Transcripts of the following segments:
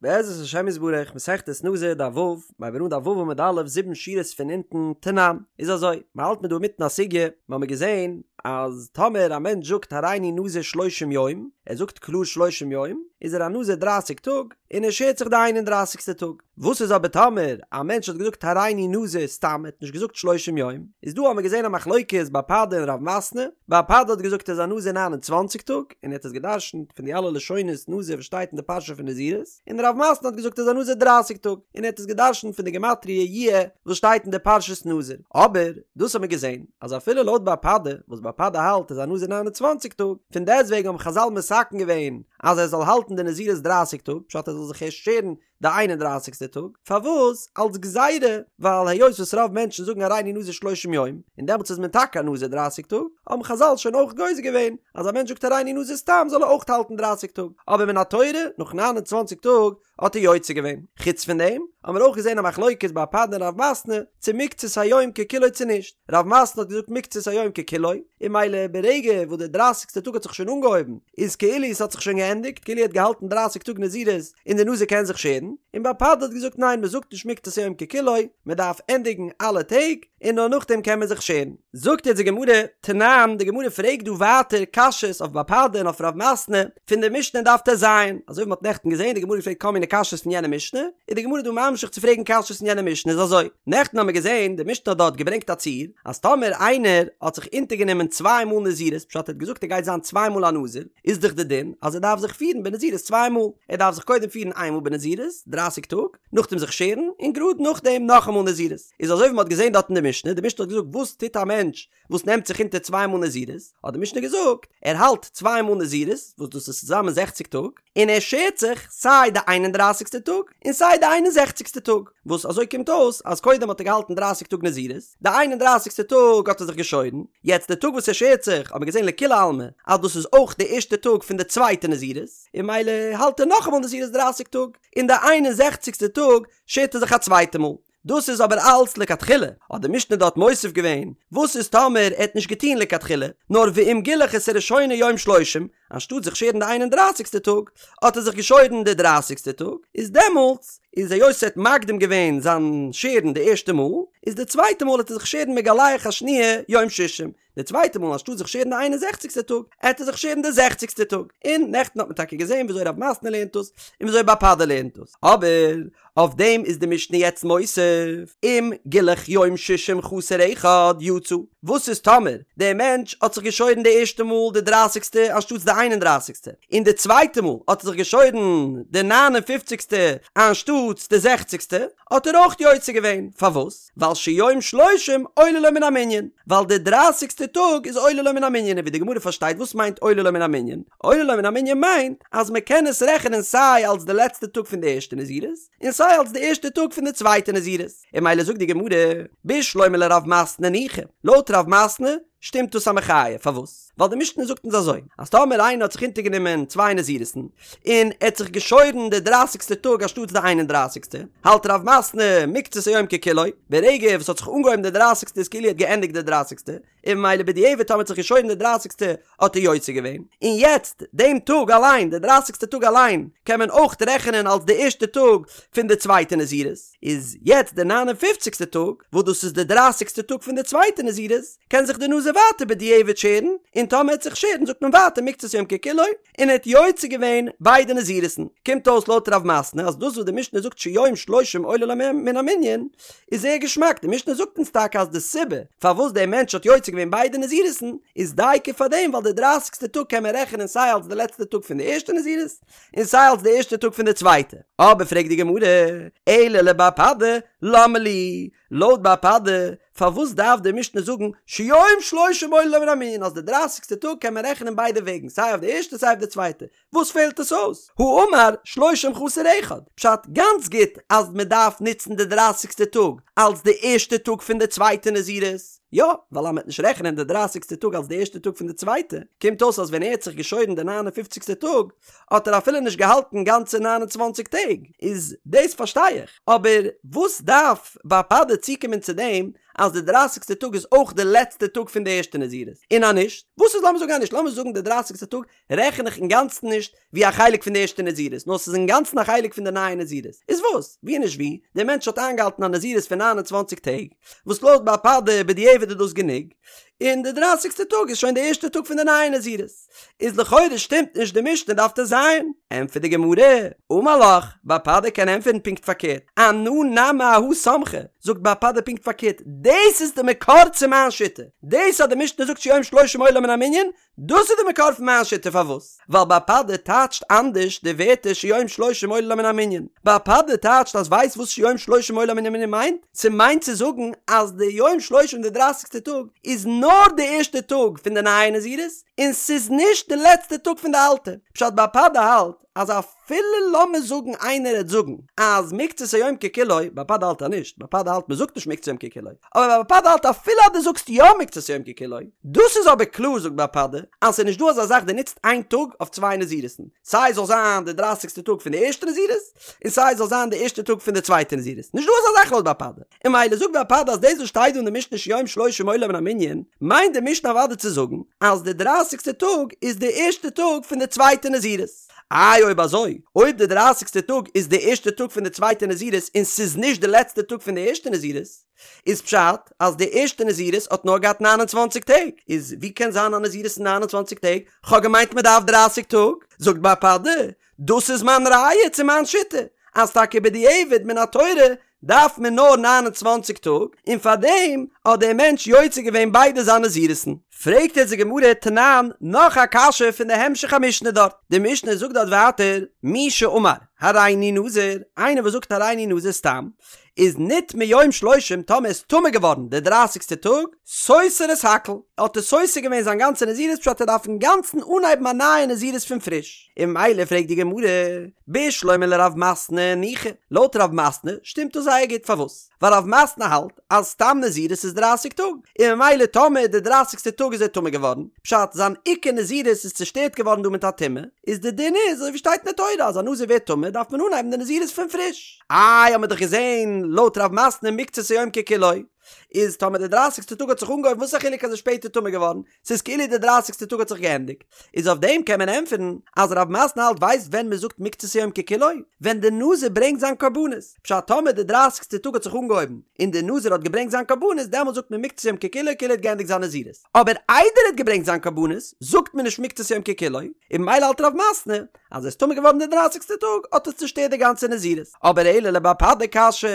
בעזרת השם יתברך, מסכת נזיר דף ו', מ'הייבט אן דף ו' עמוד א', זיבן שורות פון אונטן, תנן, איז אזוי, מ'האלט מיר דא אינמיטן א סוגיא, מ'האמיר געזען אז טאמער א מענטש זאגט הריני נזיר שלושים יום, ער זאגט קלאר שלושים יום, איז ער א נזיר דרייסיג טאג, און ער שערט זיך די איין און דרייסיגסטע טאג. וואס איז אבער טאמער א מענטש האט געזאגט הריני נזיר סתם, ער האט נישט געזאגט שלושים יום, איז דא האמיר געזען א מחלוקת בר פדא און רב מתנה, בר פדא האט געזאגט ער איז א נזיר ניין און צוואנציג טאג, און ער האט עס גע'דרש'נט פון די אלע לשונות נזיר וואס שטייט אין די פרשה פון נזירות, און רב מתנה האט געזאגט ער איז א נזיר דרייסיג טאג, און ער האט עס גע'דרש'נט פון די גמטריא יהיה וואס שטייט אין די פרשת נזיר. אבער, דאס האמיר געזען, אז אפילו לויט בר פדא, וואס בר פדא האלט ער איז א נזיר 29 טאג, פון דעסטוועגן האבן חזל מתקן געווען אז ער זאל האלטן די נזירות דרייסיג טאג, פשט ער זאל זיך ערשט שערן די איין און דרייסיגסטע טאג, פארוואס? אלס גזירה, ווייל היות וואס רוב מענטשן זאגן הריני נזיר שלושים יום, און דעמאלטס איז מען טאקע א נזיר דרייסיג טאג, האבן חזל שוין אויך גוזר געווען אז א מענטש זאגט הריני נזיר סתם זאל ער אויך האלטן דרייסיג טאג, אבער מן התורה נאך 29 טאג האט ער יוצא געווען. חוץ פון דעם האבן מיר אויך געזען א מחלוקת בר פדא און רב מתנה צו מקצת היום ככולו צו נישט, רב מתנה האט געזאגט מקצת היום ככולו, און ממילא ברגע וואס די דרייסיגסטע טאג האט זיך שוין אנגעהויבן איז כאילו עס האט זיך שוין געענדיגט, כאילו ער האט געהאלטן דרייסיג טאג נזירות און די נזיר קען זיך שערן, און בר פדא האט געזאגט ניין מען זאגט נישט מקצת היום ככולו, מען דארף ענדיגן אלע טעג און נאר נאכדעם קען מען זיך שערן. זאגט יעצט די גמרא, תנן, די גמרא פרעגט דא ווייטער קשיות אויף בר פדא און אויף רב מתנה פון די משנה אין דף טז, אזוי ווי מען האט נעכטן געזען די גמרא פרעגט כל מיני קשיות פון יענע משנה, איז די גמרא דא ממשיך צו פרעגן קשיות פון יענע משנה איז אזוי, נעכטן האבן מיר געזען די משנה האט דארט געברענגט א ציור אז טאמער איינער האט זיך אונטערגענומען צוויי מאל נזירות פשט ער האט געזאגט ער גייט זיין צוויי מאל א נזיר, איז דאך די דין אז ער דארף זיך פירן בנזירות צוויי מאל, ער דארף זיך קודם פירן איין מאל בנזירות, דרייסיג טאג, נאכדעם זיך שערן, און גראד נאכדעם נאכאמאל נזירות. איז אזוי ווי מען האט געזען דארט אין די משנה, די משנה האט געזאגט וואס טוט א מענטש וואס נעמט זיך אונטער צוויי מאל נזירות, האט די משנה געזאגט, ער האלט צוויי מאל נזירות, וואס דאס איז צוזאמען זעכציג טאג, און ער שערט זיך סיי די איין און דרייסיגסטע טאג, און סיי די איין און זעכציגסטע טאג, וואס אזוי קומט אויס אז קודם האט ער געהאלטן דרייסיג טאג נזירות, די איין און דרייסיגסטע טאג האט ער זיך געשוירן, יעצט די טאג וואס ער שערט זיך האט מען געזען לכולי עלמא אז דאס איז אויך די ערשטע טאג פון די צווייטע נזירות, און ממילא האלט ער נאכאמאל נזירות דרייסיג טאג, און די איין און זעכציגסטע טאג שערט ער זיך א צווייטע מאל. דאס איז אבער אלץ לכתחילה, האט די משנה דארט מוסיף געווען, וואס איז טאמער ער האט נישט געטון לכתחילה, נאר ואם גילח את הראשונה יום שלושים, אנשטאט זיך שערן די איין און דרייסיגסטע טאג, האט ער זיך געשוירן די דרייסיגסטע טאג, איז דעמאלטס איז היות ער האט מקדים געווען זיין שערן די ערשטע מאל, איז די צווייטע מאל העט ער זיך שערן מגלח השניה יום שישים, די צווייטע מאל אנשטאט זיך שערן די איין און זעכציגסטע טאג, העט ער זיך שערן די זעכציגסטע טאג. און נעכטן האט מען טאקע געזען וויאזוי רב מתנה לערנט דאס, און וויאזוי בר פדא לערנט דאס. אבער אויף דעם איז די משנה יעצט מוסיף, אם גילח יום שישים חסר אחד יצא. וואס איז טאמער דער מענטש האט זיך געשוירן די ערשטע מאל די דרייסיגסטע אנשטאטס די איין און דרייסיגסטע, און די צווייטע מאל האט ער זיך געשוירן די ניין און פופציגסטע אנשטאטס די זעכציגסטע, האט ער אויך יוצא געווען. פארוואס? ווייל שיום שלושים עולה לו מן המנין, ווייל די דרייסיגסטע טאג איז עולה לו מן המנין, און ווי די גמרא פארשטייט וואס מיינט עולה לו מן המנין? עולה לו מן המנין מיינט אז מען קען עס רעכענען סיי אלס די לעצטע טאג פון די ערשטע נזירות, און סיי אלס די ערשטע טאג פון די צווייטע נזירות, און ממילא זאגט די גמרא, בשלמא לרב מתנה ניחא, לויט רב מתנה שטימט דאס א מחיה, פארוואס? ווייל די משנה זאגט אונז אזוי, אז טאמער איינער האט זיך אונטערגענומען צוויי נזירות'ן, און ער האט זיך געשוירן די דרייסיגסטע טאג אנשטאטס די איין און דרייסיגסטע, האלט רב מתנה מקצת היום ככולו, ברגע וואס האט זיך אנגעהויבן די דרייסיגסטע איז כאילו ער האט געענדיגט די דרייסיגסטע, און ממילא בדיעבד טאמער האט זיך געשוירן די דרייסיגסטע האט ער יוצא געווען, און יעצט דעם טאג אליין, די דרייסיגסטע טאג אליין, קען מען אויך רעכענען אלס די ערשטע טאג פון די צווייטע נזירות, איז יעצט די ניין און פופציגסטע טאג, וואס דאס איז די דרייסיגסטע טאג פון די צווייטע נזירות, קען זיך די נזיר ווייטער בדיעבד שערן, און טאמער ער וועט זיך שערן זאגט מען ווייטער מקצת יום ככולו, און ער האט יוצא געווען ביידע נזירות'ן. קומט אויס לויט רב מתנה אז דאס וואס די משנה זאגט שיום שלושים עולה לו מן המנין איז זייער געשמאק, די משנה זאגט אונז טאקע אז די סיבה פארוואס דער מענטש האט יוצא געווען ביידע נזירות'ן איז דייקא פאר דעם ווייל די דרייסיגסטע טאג קען מען רעכענען סיי אלס די לעצטע טאג פון די ערשטע נזירות און סיי אלס די ערשטע טאג פון די צווייטע. אבער פרעגט די גמרא, אלא לבר פדא, למה לי? לויט בר פדא, פארוואס דארף די משנה זאגן שיום שלושים עולה לו מן המנין אז די דרייסיגסטע טאג קען מען רעכענען ביידע וועגן סיי אויף די ערשטע סיי אויף די צווייטע, וואס פעלט עס אויס? האמר שלושים חסר אחד, פשט גאנץ גוט אז מען דארף נוצן די דרייסיגסטע טאג אלס די ערשטע טאג פון די צווייטע נזירות. יא, ווייל אז מ'עט נישט רעכענען די דרייסיגסטע טאג אלס די ערשטע טאג פון די צווייטע, קומט אויס אז ווען ער האט זיך געשוירן די ניין און פופציגסטע טאג, האט ער אפילו נישט געהאלטן גאנצע 29 טעג, איז דאס פארשטיי איך, אבער וואס דארף בר פדא צוקומען צו דעם אז די דרייסיגסטע טאג איז אויך די לעצטע טאג פון די ערשטע נזירות, און אז נישט, וואס איז לאמיר זאגן אז נישט, לאמיר זאגן די דרייסיגסטע טאג רעכן איך אינגאנצן נישט ווי א חלק פון די ערשטע נזירות, נאר ס'איז אינגאנצן א חלק פון די נייע נזירות, איז וואס? ווי נישט ווי, דער מענטש האט איינגעהאלטן א נזירות פון 29 טעג, וואס לויט בר פדא בדיעבד איז דאס גענוג, און די דרייסיגסטע טאג איז שוין די ערשטע טאג פון די נייע נזירות. איז לכאורה שטימט נישט די משנה דף ט"ז. ענטפערט די גמרא, אמר לך, בר פדא קען ענטפערן פונקט פארקערט, אנא נמי אהא סמכא, זאגט בר פדא פונקט פארקערט, דאס איז די מקור צו מיין שיטה, דאס אז די משנה זאגט שהוא יום שלושים עולה מן המנין, דאס איז די מקור פון מיין שיטה, פארוואס? ווייל בר פדא טייטשט אנדערש די ווערטער שהוא יום שלושים עולה מן המנין, בר פדא טייטשט אז ווייסט וואס שהוא יום שלושים עולה מן המנין מיינט? ס'מיינט צו זאגן אז די יום שלושים די דרייסיגסטע טאג איז נאר די ערשטע טאג פון די נייע נזירות און ס'איז נישט די לעצטע טאג פון די אלטע, פשט בר פדא האלט אז אפילו לאמיר זאגן איינער העט זאגן אז מקצת היום ככולו, בר פדא האלט אז נישט, בר פדא האלט מ'זאגט נישט מקצת היום ככולו, אבער בר פדא האלט אפילו אז דו זאגסט יא מקצת היום ככולו, דאס איז אבער קלאר זאגט בר פדא אז ס'איז נישט דא אזא זאך דו נוצט איין טאג אויף צוויי נזירות'ן, סיי זאל זיין די דרייסיגסטע טאג פון די ערשטע נזירות, און סיי זאל זיין די ערשטע טאג פון די צווייטע נזירות, נישט דא אזא זאך לויט בר פדא, און ממילא זאגט בר פדא אז דאס וואס שטייט דא אין די משנה שהוא יום שלושים עולה מן המנין, מיינט די משנה אוודאי צו זאגן אז די דרייסיגסטע טאג איז די ערשטע טאג פון די צווייטע נזירות. איי אויב אזוי, אויב די דרייסיגסטע טאג איז די ערשטע טאג פון די צווייטע נזירות און ס'איז נישט די לעצטע טאג פון די ערשטע נזירות, איז פשט אז די ערשטע נזירות האט נאר געהאט 29 טעג, איז ווי קען זיין א נזירות אין 29 טעג? כ'האב געמיינט מ'דארף דרייסיג טאג. זאגט בר פדא, דאס איז מיין ראיה צו מיין שיטה, אז טאקע בדיעבד מן התורה דארף מען נאר 29 טאג, און פארדעם האט דער מענטש יוצא געווען ביידע זיינע נזירות'ן. פרעגט יעצט די גמרא תנן, נאך א קשיא פון די המשך המשנה דארט, די משנה זאגט דארט ווייטער, מי שאמר הריני נזיר, איינער וואס זאגט הריני נזיר סתם, איז נטמא יום שלושים טאמער איז טמא געווארן די דרייסיגסטע טאג, סותר את הכל, האט ער סותר געווען זיין גאנצע נזירות פשט ער דארף אינגאנצן אנהייבן א נייע נזירות פון פריש, און ממילא פרעגט די גמרא, בשלמא לרב מתנה ניחא, לויט רב מתנה שטימט דאס זייער גוט פארוואס? ווייל רב מתנה האלט אז סתם נזירות איז דרייסיג טאג, און ממילא טאמער די דרייסיגסטע טאג איז ער טמא געווארן, פשט זיין עיקר נזירות איז צושטערט געווארן דא מיט א טומאה, איז די דין איז אזוי ווי שטייט אין די תורה אז א נזיר ווערט טמא דארף מען אנהייבן די נזירות פון פריש. איי האמיר דאך געזען לויט רב מתנה מקצת היום ככולו, איז טאמער די דרייסיגסטע טאג האט זיך אנגעהויבן וואס איז א חילוק אז ער איז שפעטער טמא געווארן, ס'איז כאילו די דרייסיגסטע טאג האט זיך געענדיגט, איז אויף דעם קען מען ענטפערן אז רב מתנה האלט ווייסט ווען מען זאגט מקצת היום ככולו? ווען די נזיר ברענגט זיין קרבנות, פשט טאמער די דרייסיגסטע טאג האט זיך אנגעהויבן און די נזיר האט געברענגט זיין קרבנות דעמאלט זאגט מען מקצת היום ככולו כאילו ער האט געענדיגט זיין נזירות, אבער איידער ער האט געברענגט זיין קרבנות זאגט מען נישט מקצת היום ככולו, און ממילא האלט רב מתנה אז ער איז טמא געווארן די דרייסיגסטע טאג האט עס צושטערט די גאנצע נזירות, אבער אלא לבר פדא קשיא,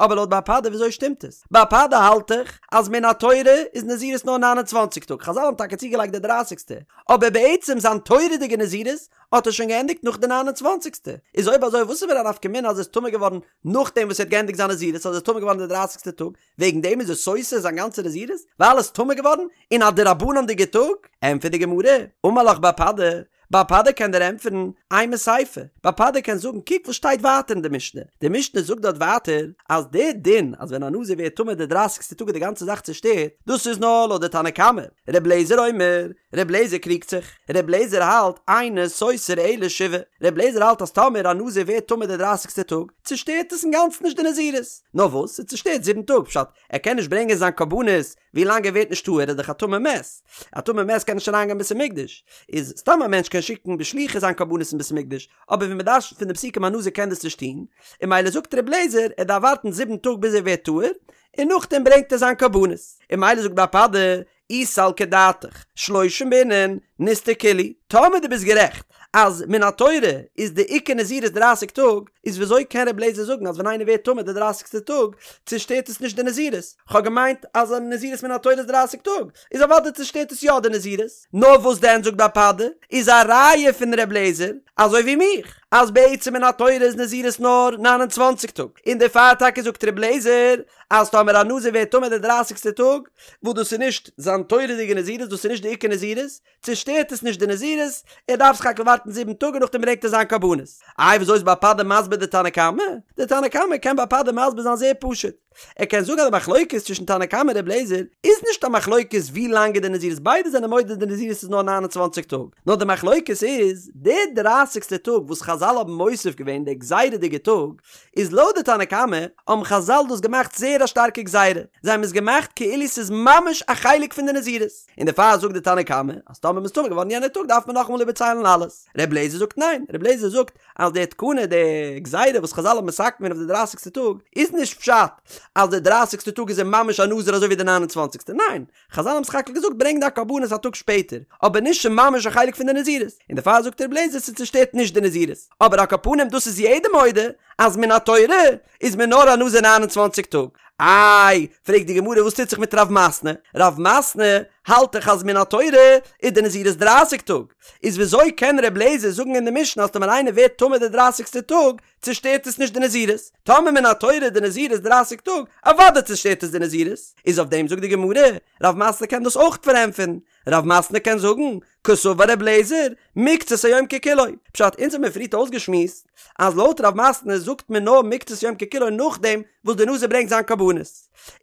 אבער לויט בר פדא וויאזוי שטימט עס? בר פדא האלט דאך אז מן התורה איז נזירות נאר 29 טאג, חזל האבן טאקע צוגעלייגט די דרייסיגסטע, אבער בעצם זיין תורה'דיגע נזירות האט ער שוין געענדיגט נאך די 29סטע, איז אויב אזוי וואס איז מיר א נפקא מינה אז ער איז טמא געווארן נאכדעם וואס ער האט געענדיגט זיין נזירות אז ער איז טמא געווארן די דרייסיגסטע טאג, וועגן דעם איז ער סותר זיין גאנצע נזירות? ווייל ער איז טמא געווארן אין א דרבנן'דיגע טאג? ענטפערט די גמרא, אמר לך בר פדא, בר פדא קען דיר ענטפערן, אימא סיפא, בר פדא קען זאגן קוק וואס שטייט ווייטער אין די משנה, די משנה זאגט דארט ווייטער אז די דין אז ווען א נזיר ווערט טמא די דרייסיגסטע טאג איז די גאנצע זאך צושטערט, דאס איז נאר לויט די תנא קמא, ר' לעזער אומר, ר' לעזער קריגט זיך, ר' לעזער האלט אינו סותר אלא שבעה, ר' לעזער האלט אז טאמער א נזיר ווערט טמא די דרייסיגסטע טאג, צושטערט עס אינגאנצן נישט די נזירות, נאר וואס, ס'צושטערט זיבן טאג, פשט, ער קען נישט ברענגען זיין קרבנות ווי לאנג ער ווערט נישט טהור, ער איז דאך א טמא מת, א טמא מת קען נישט אריינגיין בית המקדש, איז סתם א מענטש קען שיקן בשליחות זיין קרבנות אין בית המקדש, אבער ווי מ'דרש'נט פון די פסוקים א נזיר קען דאס נישט טון, און ממילא זאגט ר' לעזער ער דארף ווארטן זיבן טאג ביז ער ווערט טהור, און נאכדעם ברענגט ער זיין קרבנות, און ממילא זאגט בר פדא, אי סלקא דעתך, שלושים בעינן, ניסתור כולהו, טאמער דו ביסט גערעכט אז מן התורה איז די עיקר נזירות דרייסיג טאג, איז וויאזוי קען רבי אליעזר זאגן אז ווען איינער ווערט טמא די דרייסיגסטע טאג צושטערט עס נישט די נזירות? כ'האב געמיינט אז א נזירות מן התורה איז דרייסיג טאג, איז אוודאי צושטערט עס יא די נזירות. נאר וואס דען זאגט בר פדא, איז א ראיה פון רבי אליעזר, אזוי ווי מיך, אז בעצם מן התורה איז נזירות נאר 29 טאג, און דערפאר טאקע זאגט רבי אליעזר אז טאמער א נזיר ווערט טמא די דרייסיגסטע טאג, וואס דאס איז נישט זיין תורה'דיגע נזירות, דאס איז נישט די עיקר נזירות, צושטערט עס נישט די נזירות, ער דארף סך הכל ווארטן זיבן טאג און נאכדעם ברענגט ער זיין קרבנות. איי וויאזוי איז בר פדא מסביר די תנא קמא? די תנא קמא קען בר פדא מסביר זיין זייער פשוט. ער קען זאגן אז די מחלוקת צווישן תנא קמא און ר' לעזער איז נישט א מחלוקת ווי לאנג איז די נזירות ביידע זענען מודה די נזירות איז נאר 29 טאג נאר די מחלוקת איז די דרייסיגסטע טאג וואס חזל האבן מוסיף געווען די גזירה'דיגע טאג איז לויט די תנא קמא האבן חזל דאס געמאכט זייער א שטארקע גזירה זיי האבן עס געמאכט כאילו ס'איז ממש א חלק פון די נזירות און דערפאר זאגט די תנא קמא אז טאמער מ'איז טמא געווארן יענע טאג דארף מען נאכאמאל איבערציילן אלעס ר' לעזער זאגט ניין ר' לעזער זאגט אז די תקנה, די גזירה וואס חזל האבן מתקן געווען אויף די דרייסיגסטע טאג, איז נישט פשט אז די דרייסיגסטע טאג איז ער ממש א נזיר אזוי ווי די ניין און צוואנציגסטע, ניין, חזל האבן סך הכל געזאגט ברענג דיין קרבנות א טאג שפעטער, אבער נישט ס'ממש א חלק פון די נזירות, און דערפאר זאגט ר' לעזער ס'צושטערט נישט די נזירות, אבער על כל פנים דאס איז יעדער מודה אז מן התורה איז מען נאר א נזיר 29 טאג. איי, פרעגט די גמרא וואס טוט זיך מיט רב מתנה? רב מתנה האלט דאך אז מן התורה איז די נזירות דרייסיג טאג, איז וויאזוי קען ר' לעזער זאגן אין די משנה אז טאמער איינער ווערט טמא די דרייסיגסטע טאג צושטערט עס נישט די נזירות? טאמער מן התורה איז די נזירות דרייסיג טאג, אוודאי צושטערט עס די נזירות. איז אויף דעם זאגט די גמרא, רב מתנה קען דאס אויך פארענטפערן, רב מתנה קען זאגן, קסבר ר' לעזער, מקצת היום ככולו. פשט, אונז האבן מיר פריערט אויסגעשמועסט אז לויט רב מתנה זאגט מען נאר מקצת יום ככולו נאכדעם וואס די נזיר ברענגט זיין קרבנות.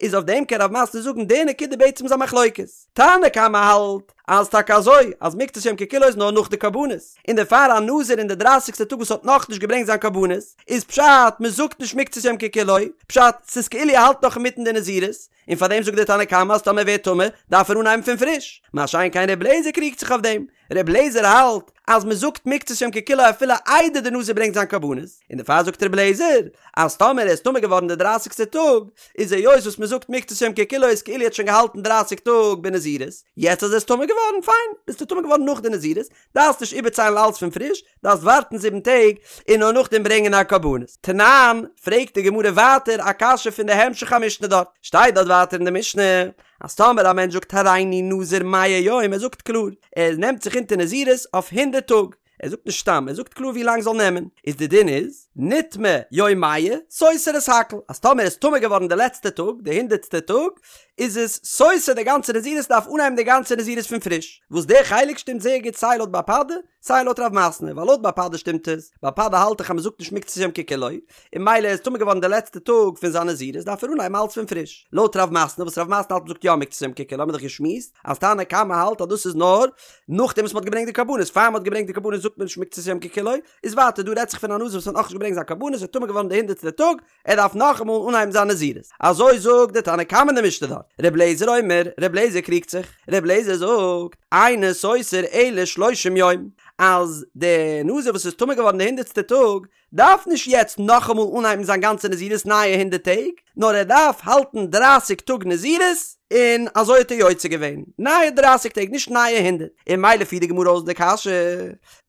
איז אויף דעם קען רב מתנה זאגן די נקודה בעצם איז א מחלוקת. תנא קמא האלט אז טאקע אזוי אז מקצת יום ככולו איז נאר נאך די קרבנות, און דערפאר א נזיר אין די דרייסיגסטע טאג וואס האט נאכנישט געברענגט זיין קרבנות, איז פשט מ'זאגט נישט מקצת יום ככולו, פשט ס'איז כאילו ער האלט נאך אינמיטן די נזירות, און פאר דעם זאגט דער תנא קמא אז טאמער ווערט טמא דארף ער אנהייבן פון פריש, מה שאין כן ר' לעזער קריגט זיך אויף דעם, ר' לעזער האלט אז מען זאגט מקצת יום ככולו אפילו איידער די נזיר ברענגט זיין קרבנות, און דערפאר זאגט ר' לעזער אז טאמער ער איז טמא געווארן די דרייסיגסטע טאג, איז היות וואס מען זאגט מקצת יום ככולו איז כאילו ער האט שוין געהאלטן דרייסיג טאג בנזירות, יעצט אז ער איז טמא געווארן, פיין, ביסטו טמא געווארן נאך די נזירות, דארפסט נישט איבערציילן אלץ פון פריש, דארפסט ווארטן זיבן טעג און נאר נאכדעם ברענגען א קרבנות. תנן, פרעגט די גמרא ווייטער א קשיא פון די המשך המשנה דארט, שטייט דארט ווייטער אין די משנה, אז טאמער א מענטש זאגט הריני נזיר מאה יום, ער זאגט קלאר, ער נעמט זיך אונטער נזירות אויף הונדערט טאג, ער זאגט נישט סתם, ער זאגט קלאר ווי לאנג זאל נעמען, איז די דין איז, נטמא יום מאה, סותר את הכל, אז טאמער ער איז טמא געווארן די לעצטע טאג, די הונדערטסטע טאג, איז עס סותר די גאנצע נזירות דארף אנהייבן די גאנצע נזירות פון פריש, וואס די חלק שטימט זייער גוט סיי לויט בר פדא, סיי לויט רב מתנה, ווייל לויט בר פדא שטימט עס, בר פדא האלט דאך אז מען זאגט נישט מקצת יום ככולו, און ממילא ער איז טמא געווארן די לעצטע טאג פון זיין נזירות דארף ער אנהייבן אלץ פון פריש, לויט רב מתנה וואס רב מתנה האלט מען זאגט יא מקצת יום ככולו האבן מיר דאך געשמועסט אז תנא קמא האלט אז דאס איז נאר נאכדעם וואס מען האט געברענגט די קרבנות, פאר מען האט געברענגט די קרבנות זאגט מען נישט מקצת יום ככולו, איז ווייטער דא רעדט זיך פון א נזיר וואס האט נאכנישט געברענגט זיין קרבנות איז טמא געווארן די הונדערטסטע טאג, ער דארף נאכאמאל אנהייבן זיין נזירות. אזוי זאגט די תנא קמא אין די משנה דארט. ר' לעזער אומר, ר' לעזער קריגט זיך. ר' לעזער זאגט, אינו סותר אלא שלושים יום, אז די נזיר וואס איז טמא געווארן די הונדערטסטע טאג, דארף נישט יעצט נאכאמאל אנהייבן זיין גאנצע נזירות נייע הונדערט טעג, נאר ער דארף האלטן דרייסיג טאג נזירות, און אזוי האט ער יוצא געווען, נייע דרייסיג טעג, נישט נייע הונדערט. און ממילא פירט די גמרא אויס די קשיא,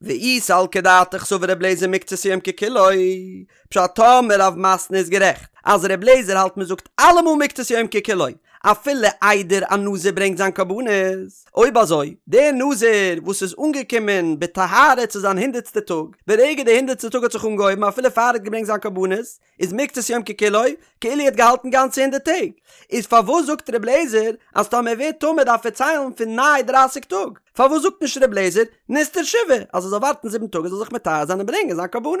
ואי סלקא דעתך סבר ר' לעזער מקצת יום ככולו, פשט טאמער רב מתנה איז גערעכט אז ר' לעזער האלט מען זאגט אלעמאל מקצת יום ככולו אפילו איידער א נזיר ברענגט זיין קרבנות, אויב אזוי דער נזיר וואס איז אנגעקומען בטהרה צו זיין הונדערטסטע טאג, ברגע די הונדערטסטע טאג האט זיך אנגעהויבן אפילו פאר ער האט געברענגט זיין קרבנות, איז מקצת יום ככולו כאילו ער האט געהאלטן גאנצע הונדערט טעג, איז פארוואס זאגט ר' לעזער אז טאמער ער ווערט טמא דארף ער ציילן פון ניי דרייסיג טאג? פארוואס זאגט נישט ר' לעזער נסתור שבעה אז ער זאל ווארטן זיבן טאג ער זאל זיך מטהר זיין און ברענגען זיין קרבנות?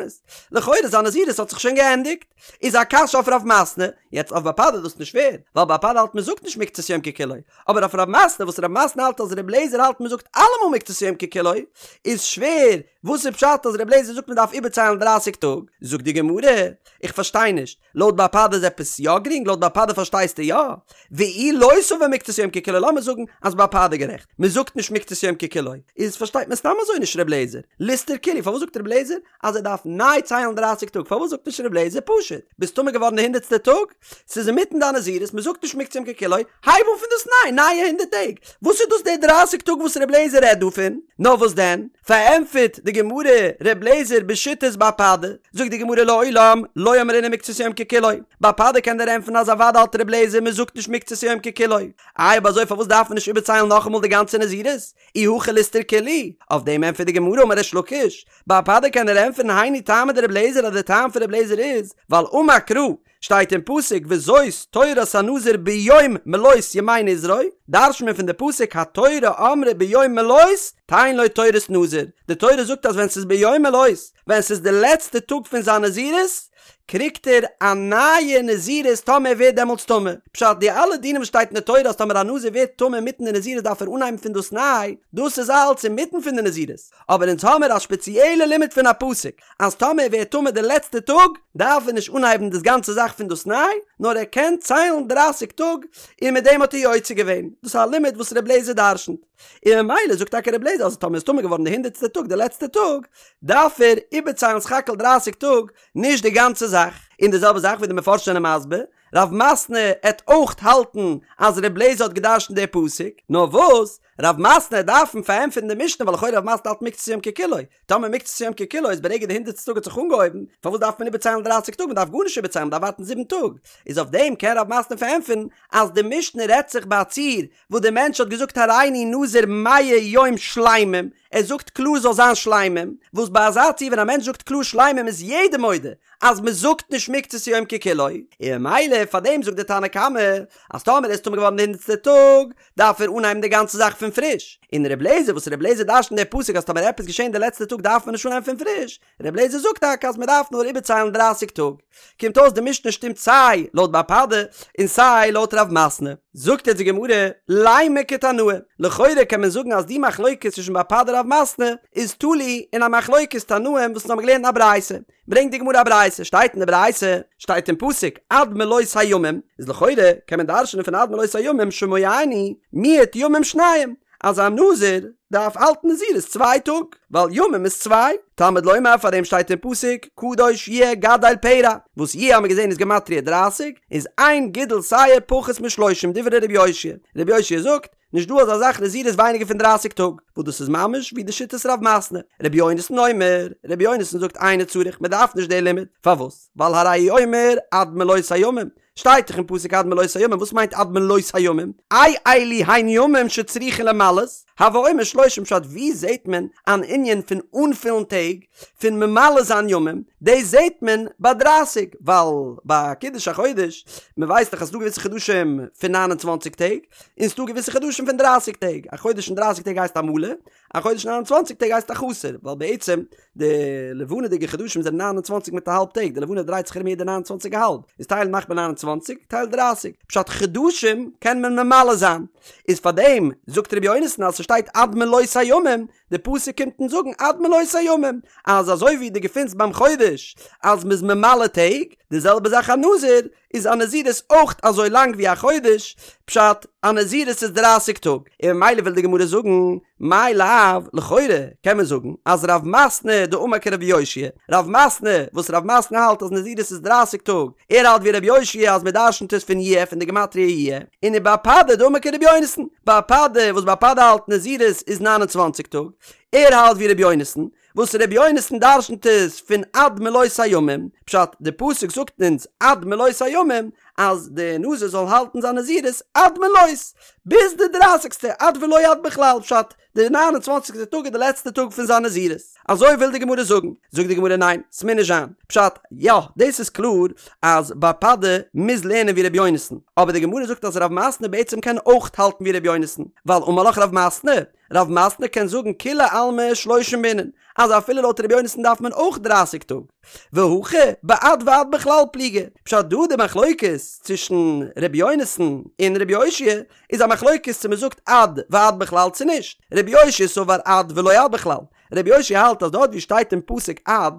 לכאורה זיין נזירות האט זיך שוין געענדיגט. איז א קשיא אויף רב מתנה, יעצט אויף בר פדא איז דאס נישט שווער, ווייל בר פדא האלט מען זאגט נישט מקצת יום ככולו, אבער אויף רב מתנה וואס רב מתנה האלט אז ר' לעזער האלט מען זאגט אלעמאל מקצת יום ככולו, איז שווער, וואס איז פשט אז ר' לעזער זאגט מען דארף איבערציילן דרייסיג טאג? זאגט די גמרא, איך פארשטיי נישט, לויט בר פדא איז עפעס יא גרינג? לויט בר פדא פארשטייסטו יא? ואי לא סבר מקצת יום ככולו לאמיר זאגן אז בר פדא גערעכט, מען זאגט נישט מקצת יום ככולו, איז פארשטייט מען סתם אזוי נישט ר' לעזער, ליסתור כולהו, פארוואס זאגט ר' לעזער אז ער דארף ניי ציילן דרייסיג טאג, פארוואס זאגט נישט ר' לעזער פשוט, ביסט טמא געווארן די הונדערטסטע טאג, ס'איז אינמיטן דיין נזירות, מען זאגט נישט מקצת יום ככולו, הייב אן פון דאס ניי, נייע הונדערט טעג, וואס איז דאס די דרייסיג טאג וואס ר' לעזער רעדט דא פון? נאר וואס דען? פארענטפערט די גמרא ר' לעזער בשיטת בר פדא, זאגט די גמרא לעולם לא אמרינן מקצת יום ככולו, בר פדא קען דיר ענטפערן אז אוודאי האלט ר' לעזער מען זאגט נישט מקצת יום ככולו, איי אויב אזוי פארוואס דארף מען נישט איבערציילן נאכאמאל די גאנצע נזירות? אי הכי ליסתור כולהו, אויף דעם ענטפערט די גמרא אמר ריש לקיש, בר פדא קען דיר ענטפערן היינו טעמא דר' לעזער אז די טעם פון ר' לעזער איז ווייל אמר קרא שטייט אין פסוק וזאת תורת הנזיר ביום מלאות ימי נזרו, דרש'נט מען פון די פסוק התורה אמרה ביום מלאות. תן לו תורת נזיר, די תורה זאגט אז ווען ס'איז ביום מלאת, ווען ס'איז די לעצטע טאג פון זיין נזירות, קריגט ער א נייע נזירות טאמער ער ווערט דעמאלטס טמא. פשט, די אלע דינים וואס שטייט אין די תורה אז טאמער א נזיר ווערט טמא אינמיטן די נזירות דארף ער אנהייבן פון דאס ניי, דאס איז אלץ אינמיטן פון די נזירות. אבער אונז האמיר א שפעציעלע לימוד פון א פסוק אז טאמער ער ווערט טמא די לעצטע טאג דארף ער נישט אנהייבן דאס גאנצע זאך פון דאס ניי, נאר ער קען ציילן דרייסיג טאג און מיט דעם האט ער יוצא געווען. דאס איז א לימוד וואס ר' לעזער דרשנ'ט. און ממילא זאגט טאקע ר' לעזער אז טאמער איז טמא געווארן די הונדערטסטע טאג די לעצטע טאג דארף ער איבערציילן סך הכל דרייסיג טאג נישט די גאנצע זאך. און די זעלבע זאך ווי די מפרשים זענען מסביר, רב מתנה עט אויך האלטן אז ר' לעזער האט געדרשנט די פסוק, נאר וואס רב מתנה עט דארפן פארענטפערן די משנה ווייל לכאורה רב מתנה האלט מקצת יום ככולו, טאמער מקצת יום ככולו איז ברגע די הונדערטסטע טאג האט זיך אנגעהויבן, פארוואס דארף מען איבערציילן דרייסיג טאג מען דארף גארנישט איבערציילן מען דארף ווארטן זיבן טאג, איז אויף דעם קען רב מתנה פארענטפערן אז די משנה רעדט זיך ביי א ציור וואס די מענטש האט געזאגט הריני נזיר מאה יום שלימים, ער זאגט קלאר זאל זיין שלימים, וואס ביי אזא ציור ווען א מענטש זאגט קלאר שלימים איז יעדער מודה אז מען זאגט נישט מקצת יום ככולו, און ממילא פאר דעם זאגט די תנא קמא אז טאמער איז טמא געווארן די הונדערטסטע טאג דארף ער אנהייבן די גאנצע זאך פון פריש, און ר' לעזער וואס ר' לעזער דרש'נט די פסוק אז טאמער עפעס געשען די לעצטע טאג דארף מען נישט אנהייבן פון פריש, ר' לעזער זאגט טאקע אז מען דארף נאר איבערציילן דרייסיג טאג. קומט אויס די משנה שטימט סיי לויט בר פדא און סיי לויט רב מתנה. זאגט יעצט די גמרא, לימא כתנאי, לכאורה קען מען זאגן אז די מחלוקת צווישן בר פדא רב מתנה איז תלוי אין א מחלוקת תנאים וואס אונז האבן געלערנט אין א ברייתא. ברענגט די גמרא א ברייתא, שטייט אין די ברייתא, שטייט אין פסוק עד מלאות הימים, איז לכאורה קען מען דרש'נען פון עד מלאות הימים שומעני מיעוט ימים שניים, אז א נזיר דארף האלטן נזירות צוויי טאג, ווייל ימים איז צוויי, תלמוד לומר פאר דעם שטייט אין פסוק קדוש יהיה גדל פרע, וואס יהיה האמיר געזען איז גמטריא דרייסיג, איז אין גידול שער פחות משלושים דברי ר' יאשיה, ר' יאשיה זאגט, נישט דא אזא זאך נזירות ווייניגער פון דרייסיג טאג, וואס דאס איז ממש ווי די שיטת רב מתנה, ר' יונתן אומר, ר' יונתן זאגט אינו צריך, מען דארף נישט די לימוד, פארוואס? ווייל הרי הוא אומר עד מלאות הימים, שטייט דאך אין פסוק עד מלאות הימים, וואס מיינט עד מלאות הימים? אי אלו הן ימים שצריכין למלאות, הוי אומר שלושים פשט ווי זעהט מען אן ענין פון אנפילן טעג, פון ממלא זיין ימים, דאס זעהט מען ביי דרייסיג, ווייל ביי קידוש החודש, מען ווייסט דאך אז ס'דא געוויסע חדשים פון ניין און צוואנציג טעג, און ס'דא געוויסע חדשים פון דרייסיג טעג, א חודש פון דרייסיג טעג הייסט א מלא, א חודש פון ניין און צוואנציג טעג הייסט א חסר, ווייל בעצם די לבנה'דיגע חדשים זענען ניין און צוואנציג מיט א האלב טעג, די לבנה דרייט זיך ארום יעדע ניין און צוואנציג א האלב, איז טייל מאכט מען ניין און צוואנציג, טייל דרייסיג, פשט חדשים קען מען ממלא זיין, איז פארדעם זאגט ר' יונתן אז ס'שטייט עד מלאות הימים, די פסוק קומט אונז זאגן עד מלאות הימים, אז אזוי ווי דו געפינסט ביים חודש אז מ'איז ממלא טעג, די זעלבע זאך א נזיר, איז א נזירות אויך אזוי לאנג ווי א חודש, פשט, א נזירות איז דרייסיג טאג, און ממילא וויל די גמרא זאגן, מאי לאו, לכאורה קען מען זאגן אז רב מתנה דאמר כרבי יאשיה, רב מתנה וואס רב מתנה האלט אז נזירות איז דרייסיג טאג, ער האלט ווי רבי יאשיה אז מען דרשנ'ט עס פון יהיה פון די גמטריא יהיה, און ובר פדא דאמר כרבי יונתן, בר פדא וואס בר פדא האלט נזירות איז ניין און צוואנציג טאג, ער האלט ווי רבי יונתן, וואס רבי יונתן דרשנ'ט עס פון עד מלאות הימים, פשט, די פסוק זאגט אונז עד מלאות הימים אז די נזיר זאל האלטן זיין נזירות עד מלאות, ביז די דרייסיגסטע, עד ולא עד בכלל, פשט, די ניין און צוואנציגסטע טאג איז די לעצטע טאג פון זיין נזירות. אזוי וויל די גמרא זאגן. זאגט די גמרא ניין, ס'מוז נישט זיין. פשט, יא, דאס איז קלאר אז בר פדא מוז לערנען ווי רבי יונתן, אבער די גמרא זאגט אז רב מתנה בעצם קען אויך האלטן ווי רבי יונתן, ווייל אמר לך רב מתנה, רב מתנה קען זאגן כולי עלמא שלושים בעינן, אז אפילו לויט רבי יונתן דארף מען אויך דרייסיג טאג. והכא בעד ועד בכלל פליגי. פשט דא די מחלוקת צווישן רבי יונתן און רבי יאשיה איז א מחלוקת צו מען זאגט עד ועד בכלל צו נישט. רבי יאשיה סבר עד ולא עד בכלל. רבי יאשיה האלט אז דארט ווי שטייט אין פסוק עד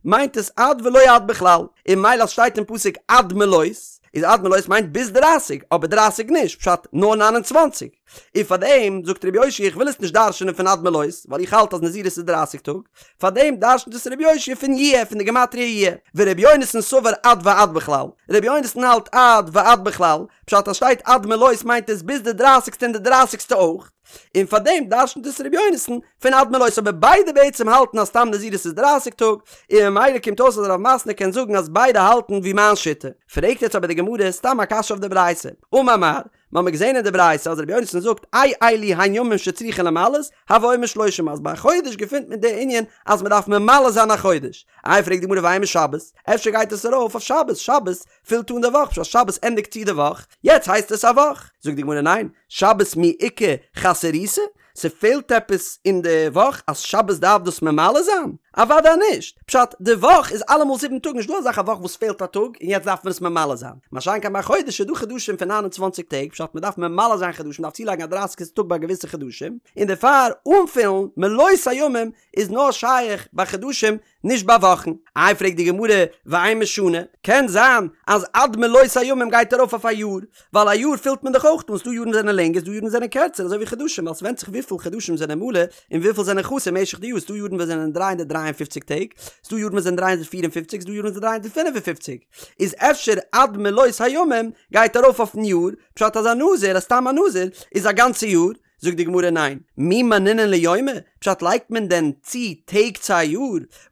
מיינט עס עד ולא עד בכלל, און ממילא אז שטייט אין פסוק עד מלאות איז עד מלאות מיינט ביז דרייסיג אבער דרייסיג נישט פשט נאר ניין און צוואנציג. און פאר דעם זאגט רבי יאשיה איך וויל עס נישט דרש'נען פון עד מלאות ווייל איך האלט אז נזירות איז דרייסיג טאג, פאר דעם דרש'נט עס רבי יאשיה פון יהיה פון די גמטריא יהיה, ורבי יונתן סבר עד ועד בכלל, רבי יונתן האלט עד ועד בכלל, פשט אז שטייט עד מלאות מיינט עס ביז די דרייסיגסטע און די דרייסיגסטע אויך, און פאר דעם דרש'נט עס רבי יונתן פון עד מלאות אבער ביידע בעצם האלטן אז סתם נזירות איז דרייסיג טאג, און ממילא קומט אויס אז רב מתנה קען זאגן אז ביידע האלטן ווי מיין שיטה. פרעגט יעצט אבער די גמרא סתם א קשיא אויף די ברייתא, אמר מר, מ'האמיר געזען אין די ברייתא אז רבי יונתן זאגט אי אלו הן ימים שצריכין למלאות, הוי אומר שלושים אז ביי א חודש געפינט מען די ענין אז מ'דארף ממלא זיין א חודש. איי פרעגט די גמרא ואימא שבת, אפשר גייט עס ארויף אויף שבת, שבת פילט אן די וואך, פשט שבת ענדיגט צו די וואך, יעצט הייסט עס א וואך. זאגט די גמרא ניין, שבת מי איכא חסרותא? ס'פעלט עפעס אין די וואך אז שבת דארף דאס ממלא זיין? אוודאי נישט! פשט, די וואך איז אלעמאל זיבן טאג נישט דא אזאך א וואך וואס פעלט א טאג און יעצט דארף מען עס ממלא זיין. מה שאין כן ביי חודש איז דא חדשים פון 29 טעג פשט מ'דארף ממלא זיין חדשים מ'דארף צולייגן א דרייסיגסטע טאג ביי געוויסע חדשים און דערפאר אנפילן מלאות הימים איז נאר שייך ביי חדשים נישט ביי וואכן. איי פרעגט די גמרא ואימא שנה, קען זיין אז עד מלאות הימים גייט ארויף אויף א יאר, ווייל א יאר פילט מען דאך אויך אן, ס'דא יארן זענען לענגער ס'דא יארן זענען קערצער אזוי ווי חדשים ווייל ס'ווענדט זיך וויפיל חדשים זענען מלא און וויפיל זענען חסר משך די יאר, ס'דא יארן וואס זענען 353 טעג, ס'דא יארן וואס זענען 354, ס'דא יארן וואס זענען 355, איז אפשר עד מלאות הימים גייט ארויף אויפן יאר, פשט אז א נזיר, א סתם א נזיר, איז א גאנצע יאר, זאגט די גמרא ניין, מי מנינן ליומי, פשט לייגט מען דען צו טעג צו א יאר?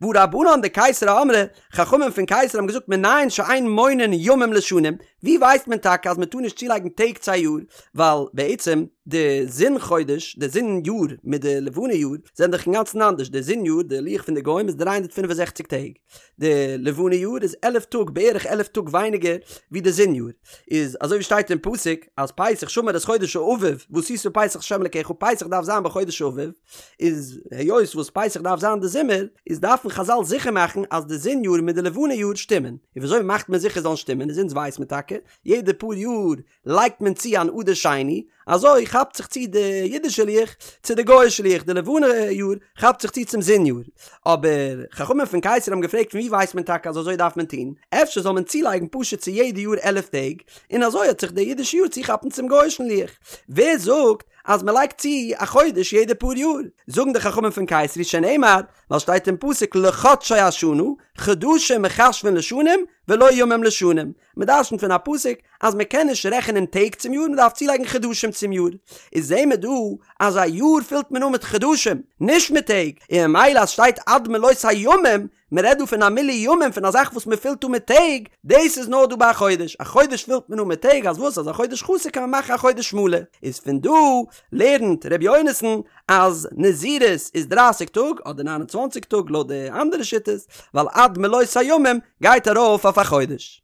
והא רבנן דקיסרי אמרי, חכמים פון קיסרי האבן געזאגט מנין שאין מונין ימים לשנים, ווי ווייסט מען טאקע אז מען טאר נישט צולייגן טעג צו א יאר, ווייל בעצם די זון חודש, די זון יאר מיט די לבנה יאר זענען דאך אינגאנצן אנדערש, די זון יאר, די לוח פון די גוים איז 365 טעג, די לבנה יאר איז עלף טאג בערך עלף טאג ווייניגער ווי די זון יאר, איז אזוי ווי שטייט אין פסוק אז פסח שמור את חודש האביב ועשית פסח לה' אלקיך פסח דארף זיין בחודש האביב, איז היות וואס פסח דארף זיין די זומער איז דארפן חזל זיכער מאכן אז די זון יאר מיט די לבנה יאר שטימען, און וויאזוי מאכט מען זיכער זאלן שטימען איז אונז ווייס מען טאקע יעדע פאר יאר לייגט מען צו אן אדר שני, אזוי כאפט זיך צו די אידישע לוח צו די גוי'אישע לוח, די לבנה יאר כאפט זיך צו צום זון יאר. אבער חכמים פון קיסרי האבן געפרעגט פון וואו ווייסט מען טאקע אז אזוי דארף מען טון, אפשר זאל מען צולייגן פשוט צו יעדע יאר עלף טעג, און אזוי וועט זיך די אידישע יאר צוכאפן צום גוי'אישן לוח. ווער זאגט אז מען לייגט צו א חודש יעדע פאר יאר? זאגן די חכמים פון קיסרי שנאמר, ווייל שטייט אין פסוק לחדשי השנה, חדשים מחשבין לשנים ולא ימים לשנים, מען דרשנ'ט פון א פסוק אז מען קען נישט רעכענען טעג צום יאר, מען דארף צולייגן חדשים צום יאר. איז זעהן מיר דא אז א יאר פילט מען אן מיט חדשים, נישט מיט טעג, און ממילא אז שטייט עד מלאות הימים, מען רעדט דא פון א מילוי ימים פון א זאך וואס מען פילט אן מיט טעג, דאס איז נאר דא ביי א חודש, א חודש פילט מען אן מיט טעג, אז וואס אז א חודש חסר קען מען מאכן א חודש מלא, איז פון דא לערנט ר' יונתן אז נזירות איז דרייסיג טאג אדער ניין און צוואנציג טאג לויט די אנדערע שיטות, ווייל עד מלאות הימים גייט ארויף אויף א חודש.